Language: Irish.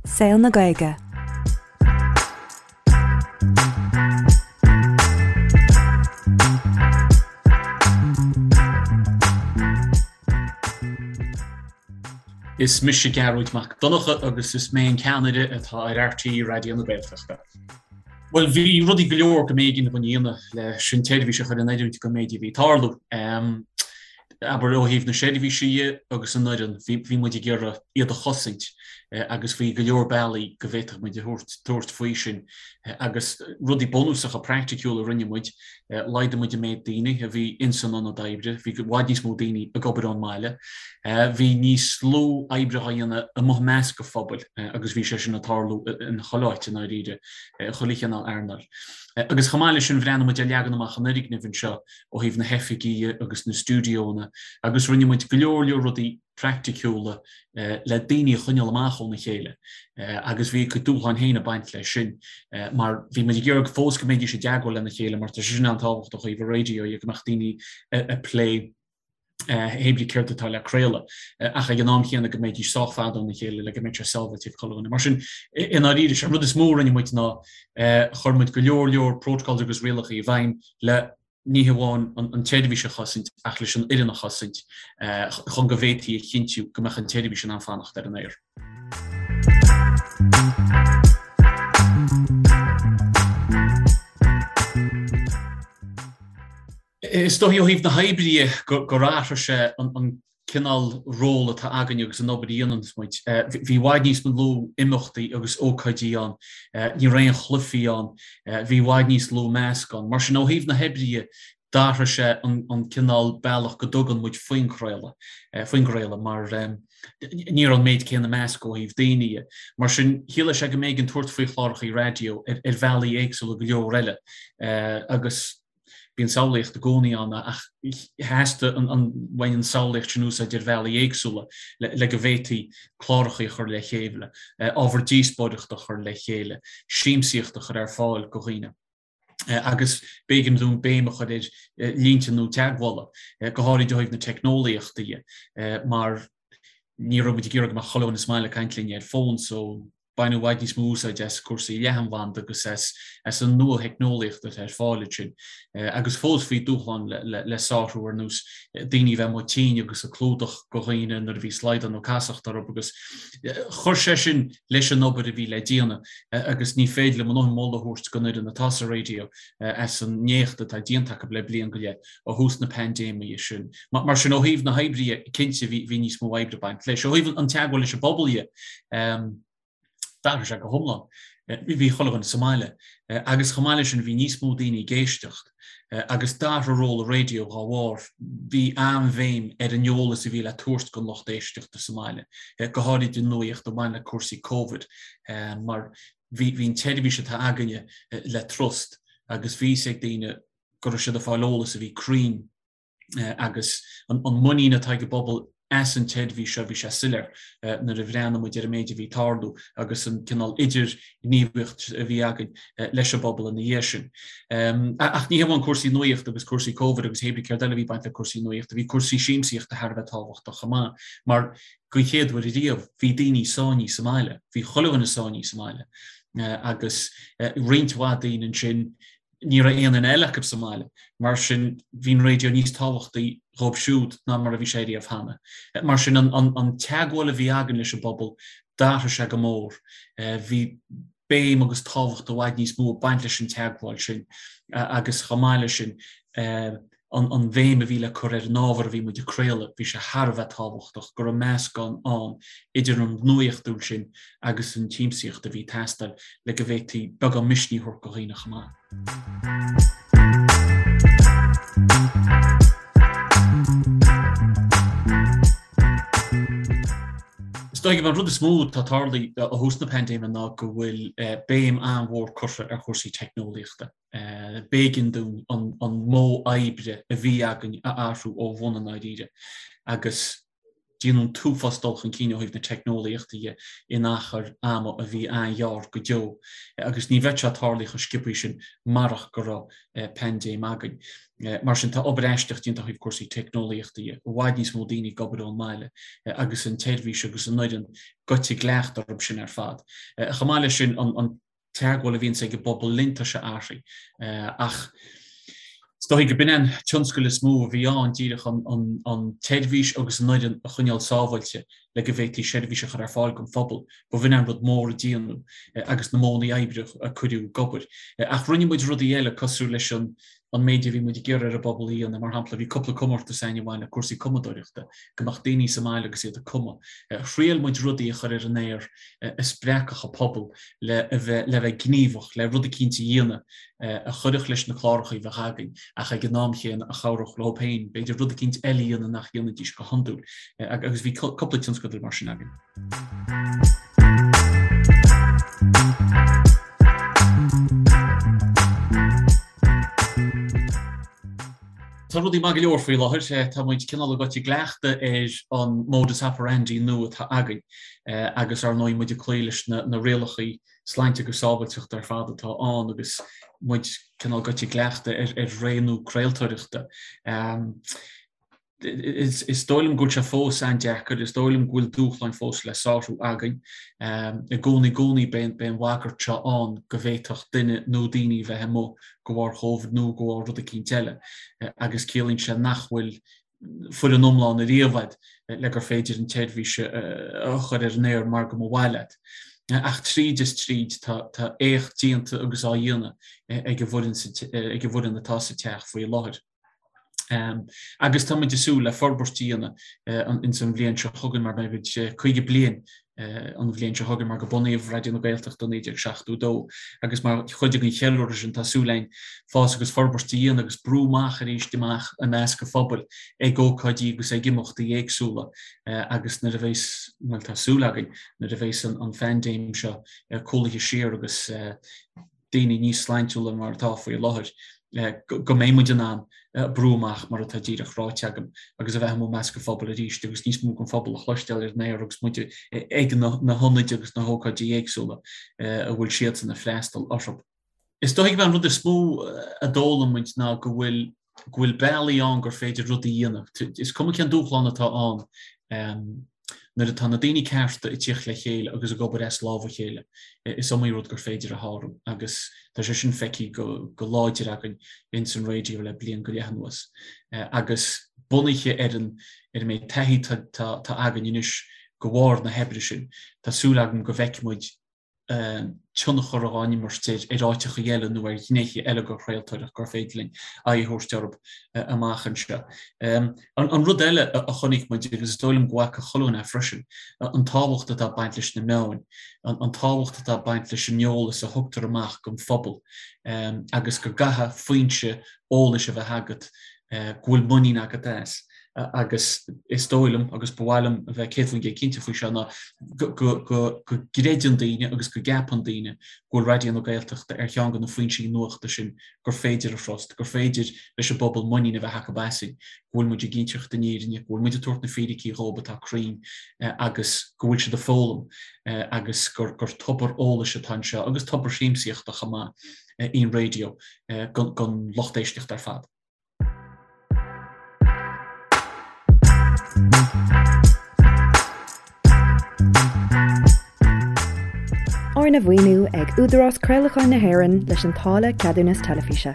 Saol na Gaeilge. Is mise Gearóid Mac Donncha agus is mé an ceannaire atá ar RTÉ Raidió na Gaeltachta. Bhuel, bhí rudaí go leor go mb'éigean dúinn a dhéanamh leis an tseirbhís a chur in oiriúint don méid a bhí ag tarlú. Abair, ó thaobh na seirbhíse dhe agus an fhoireann, bhí muid ag iarraidh iad a chosaint agus bhí go leor bealaí go bhféadfadh muid a thabhairt faoi sin agus rudaí bunúsacha praiticiúla a rinne muid, laghdaigh muid an méid daoine a bhí ins an ionad oibre, bhí i bhfad níos mó daoine ag obair ón mbaile, bhí níos lú oibre á dhéanamh amuigh i measc an phobail agus bhí sé sin ag tarlú in chuile áit i ndáiríre, i chuile chineál earnáil. Agus chomh maith leis sin bhreathnaigh muid ar leagan amach an fhoirgnimh anseo ó thaobh na hoifigí agus na stiúideónna agus rinne muid go leor leor rudaí praiticiúla le daoine a choinneáil amach óna chéile agus bhí a gcuid dúshláin féin ag baint leis sin mar bhí muid ag iarraidh fós go mbeidís i dteagmháil lena chéile mar tá sé sin an-tábhachtach ó thaobh an raidió dhe go mbeadh daoine ag plé hé brí céard atá le craoladh ach ag an am chéanna go mbeidís sách fada óna chéile le go mbeidh sé sábháilte ag chuile dhuine. Mar sin, i ndáiríre, sé an rud is mó a rinne muid ná chuir muid go leor leor protocols agus rialacha i bhfeidhm le ní hamháin an tseirbhís a chosaint ach leis an fhoireann a chosaint chun go bhféadfaí a chinntiú go mbeadh an tseirbhís in ann fanacht ar an aer. Is dóichí ó thaobh na hoibre dhe gur athraigh sé an cineál ról atá againn agus an obair a dhéanann muid. Bhí i bhfad níos lú imeachtaí agus ócáidí ann, ní raibh aon chluichí ann, bhí i bhfad níos lú meascán. Mar sin ó thaobh na hoibre dhe, d'athraigh sé an cineál bealach go dtugann muid faoin chraoladh, faoin gcraoladh mar ní raibh an méid céanna meascadh ó thaobh daoine dhe. Mar sin, chiallaigh sé go mb'éigean tabhairt faoi chláracha raidió ar bhealaí éagsúla go leor eile agus Bíonn samhlaíocht i gcónaí ann ach theastaigh an bhain an samhlaíocht sin úsáid ar bhealaí éagsúla le go bhféadfaí cláracha a chur le chéile, ábhar díospóireachta a chur le chéile, siamsaíocht a chur ar fáil go dhaoine. Agus b'éigean dúinn béim a chur ar línte nua teagmhála, go háirid ó thaobh na teicneolaíochta dhe, mar ní raibh muid ag iarraidh go mbeadh chuile dhuine sa mbaile ag caint linn ar fón so baineadh i bhfad níos mó úsáid as cúrsaí leathanbhanda agus as an nua-theicneolaíocht atá ar fáil ansin. Agus fós bhí dúshlán le sárú ar nós daoine a bheith amuigh tinn agus ag clúdach go dhaoine nuair a bhí slaghdán nó casacht orthu agus chuir sé sin leis an obair a bhí le déanamh agus ní féidir liom a ndóthain moladh a thabhairt don fhoireann atá sa raidió as an n-éacht atá déanta acu le bliain go leith ó thús na paindéime sin. Mar sin, ó thaobh na hoibre dhe, cinnte bhí níos mó oibre ag baint leis. Ó thaobh an teagmháil leis an bpobal dhe, d'athraigh sé go hiomlán. Bhí chuile dhuine sa mbaile agus chomh maith leis sin bhí níos mó daoine ag éisteacht agus d'athraigh ról an raidió dá bharr. Bhí an-bhéim ar an eolas a bhí le tabhairt don lucht éisteachta sa mbaile, go háirid an nuaíocht a bhain le cúrsaí Covid mar bhí an tseirbhís atá againne le trust agus bhí fhios ag daoine go raibh siad ag fáil eolas a bhí cruinn agus an muinín atá ag an bpobal as an tseirbhís seo, bhí sé soiléir nuair a bhreathnaigh muid ar an méid a bhí ag tarlú agus an cineál idirghníomhaíocht a bhí againn leis an bpobal ina dhiaidh sin. Ach ní hamháin cúrsaí nuaíochta agus cúrsaí Covid agus hé brí céard eile a bhí ag baint le cúrsaí nuaíochta, bhí cúrsaí siamsaíochta thar a bheith tábhachtach chomh maith mar den chéad uair ariamh bhí daoine sáinnithe sa mbaile, bhí chuile dhuine sáinnithe sa mbaile agus roinnt mhaith daoine ansin Ní raibh aon duine eile acu sa mbaile, mar sin bhí an raidió níos tábhachtaí dhóibh siúd ná mar a bhí sé riamh cheana. Mar sin an teagmháil a bhí againn leis an bpobal, d'athraigh sé go mór. Bhí béim agus tábhacht i bhfad níos mó ag baint leis an teagmháil sin agus chomh maith leis sin, an bhéim a bhí le cur ar an ábhar a bhí muid ag craoladh, bhí sé thar a bheith tábhachtach go raibh meascán ann idir an nuaíochtúil sin agus an tsiamsaíocht a bhí ag teastáil le go bhféadfaí beagán misnigh a thabhairt do dhaoine chomh maith. Is dóigh an rud is mó atá tarlaithe ó thús na paindéime ná go bhfuil béim an-mhór curtha ar chúrsaí teicneolaíochta. B'éigean dúinn an modh oibre a bhí againn a athrú ó bhun i ndáiríre agus. Déanadh an t-uafás dul chun cinn ó thaobh na teicneolaíochta dhe in achar ama a bhí an-ghearr go deo agus ní bheadh sé tarlaithe chomh sciobthaí sin marach go raibh paindéim againn. Mar sin tá obair aisteach déanta ó thaobh cúrsaí teicneolaíochta dhe, i bhfad níos mó daoine ag obair ón mbaile agus an tseirbhís agus an fhoireann gaibhte i gcleachtadh orthu sin ar fad. Chomh maith leis sin an teagmháil a bhíonns ag an bpobal linn, tá sé athraithe. Ach is dóigh go b'in an tionscal is mó a bhí ann, díreach an tseirbhís agus an fhoireann a choinneáil sábháilte le go bhféadfaí seirbhís a chur ar fáil don phobal. Ba bh'in an rud mór a déanadh agus na modhanna oibre a cuireadh ag obair. Ach rinne muid rudaí eile cosúil leis an an méid a bhí muid ag iarraidh ar an bpobal a dhéanamh. Mar shampla, bhí cúpla comórtas againn a bhain le cúrsaí cumadóireachta, go mbeadh daoine sa mbaile agus iad ag cumadh. Thriail muid rudaí a chur ar an aer a spreagfadh an pobal le a bheith le bheith gníomhach, le rud eicínt a dhéanamh a chuirfeadh leis na cláracha a bheadh againn ach ag an am chéanna a chabhródh leo féin, b'fhéidir rud eicínt eile a dhéanamh nach ndéanfaidís go hiondúil. Agus bhí cúpla tionscadal mar sin againn. Tá rudaí maith go leor faoi láthair. Tá muid cineál gaibhte i gcleachtadh ar an modus operandi nua atá againn agus ar ndóigh muid ag cloí leis na rialacha sláinte agus sábháilteachta ar fad atá ann agus muid cineál gaibhte i gcleachtadh ar ré nua craoltóireachta. Is dóigh liom go bhfuil sé fós an-deacair, is dóigh liom go bhfuil dúshláin fós le sárú againn. I gcónaí, i gcónaí beidh an bhagairt seo ann go bhféadfadh duine nó daoine a bheith amuigh de bharr Covid nó de bharr rud eicínt eile agus ciallaíonn sé nach bhfuil foireann iomlán ariamh agat le gur féidir an tseirbhís a chur ar an aer mar go mba mhaith leat. Ach tríd is tríd tá éacht déanta agus á dhéanamh ag an bhfoireann atá sa teach faoi láthair. Agus tá muid ag súil le forbairt a dhéanamh ins an bhliain seo chugainn mar beidh muid 50 bliain an bhliain seo chugainn mar go bunaíodh Raidió na Gaeltachta i 1972 agus mar chuid den cheiliúradh sin tá súil againn fás agus forbairt a dhéanamh agus brú amach arís amach i measc an phobail ag ócáidí agus ag imeachtaí éagsúla agus nuair a bheas, bhuel tá súil againn, nuair a bheas an phaindéim seo cúlaithe siar agus daoine níos sláintiúla mar atá faoi láthair, go mbeidh muid in ann brú amach mar atá díreach ráite agam agus a bheith amuigh i measc an phobail arís agus níos mó den phobal a chloisteáil ar an aer agus muid ag na hionaid agus na hócáidí éagsúla a bhfuil siadsan ag freastal orthu. Is dóigh gurb é an rud is mó a d'fhoghlaim muid ná go bhfuil go bhfuil bealaí ann gur féidir rudaí a dhéanamh. Is cuma cén dúshlán atá ann, nuair atá na daoine cearta ag tíocht le chéile agus ag obair as lámh a chéile, is iomaí rud gur féidir a shárú agus tá sé sin feicthe go láidir againn ins an raidió le bliain go leith anuas. Agus bunaithe ar an ar an méid taithí atá againn anois de bharr na hoibre sin, tá súil agam go bhfeicfidh muid tionchar á imirt ar áiteacha eile nó ar ghnéithe eile den chraoltóireacht gur féidir linn aghaidh a thabhairt orthu amach anseo. An rud eile a chonaic muid, agus is dóigh liom go bhfaca chuile dhuine é freisin, an tábhacht atá ag baint leis na meáin, an tábhacht atá ag baint leis an eolas a thugtar amach don phobal agus go gcaithfidh foinse eolais a bheith agat go bhfuil muinín agat as. Agus is dóigh liom, agus ba mhaith liom a bheith 100% cinnte faoi seo, ná go gcreideann daoine agus go gceapann daoine go bhfuil Raidió na Gaeltachta ar cheann de na foinsí nuachta sin gur féidir a thrust, gur féidir leis an bpobal muinín a bheith acu asainn, go bhfuil muid ag inseacht an fhírinne, go bhfuil muid ag tabhairt na fíricí dhóibh atá cruinn agus go bhfuil siad ag foghlaim agus gur tobar eolais atá anseo agus tobar siamsaíochta chomh maith í an raidió don lucht éisteachta ar fad. Arna mhaoiniú ag Údarás Craolacháin na hÉireann leis an táille Ceadúnas Teilifíse.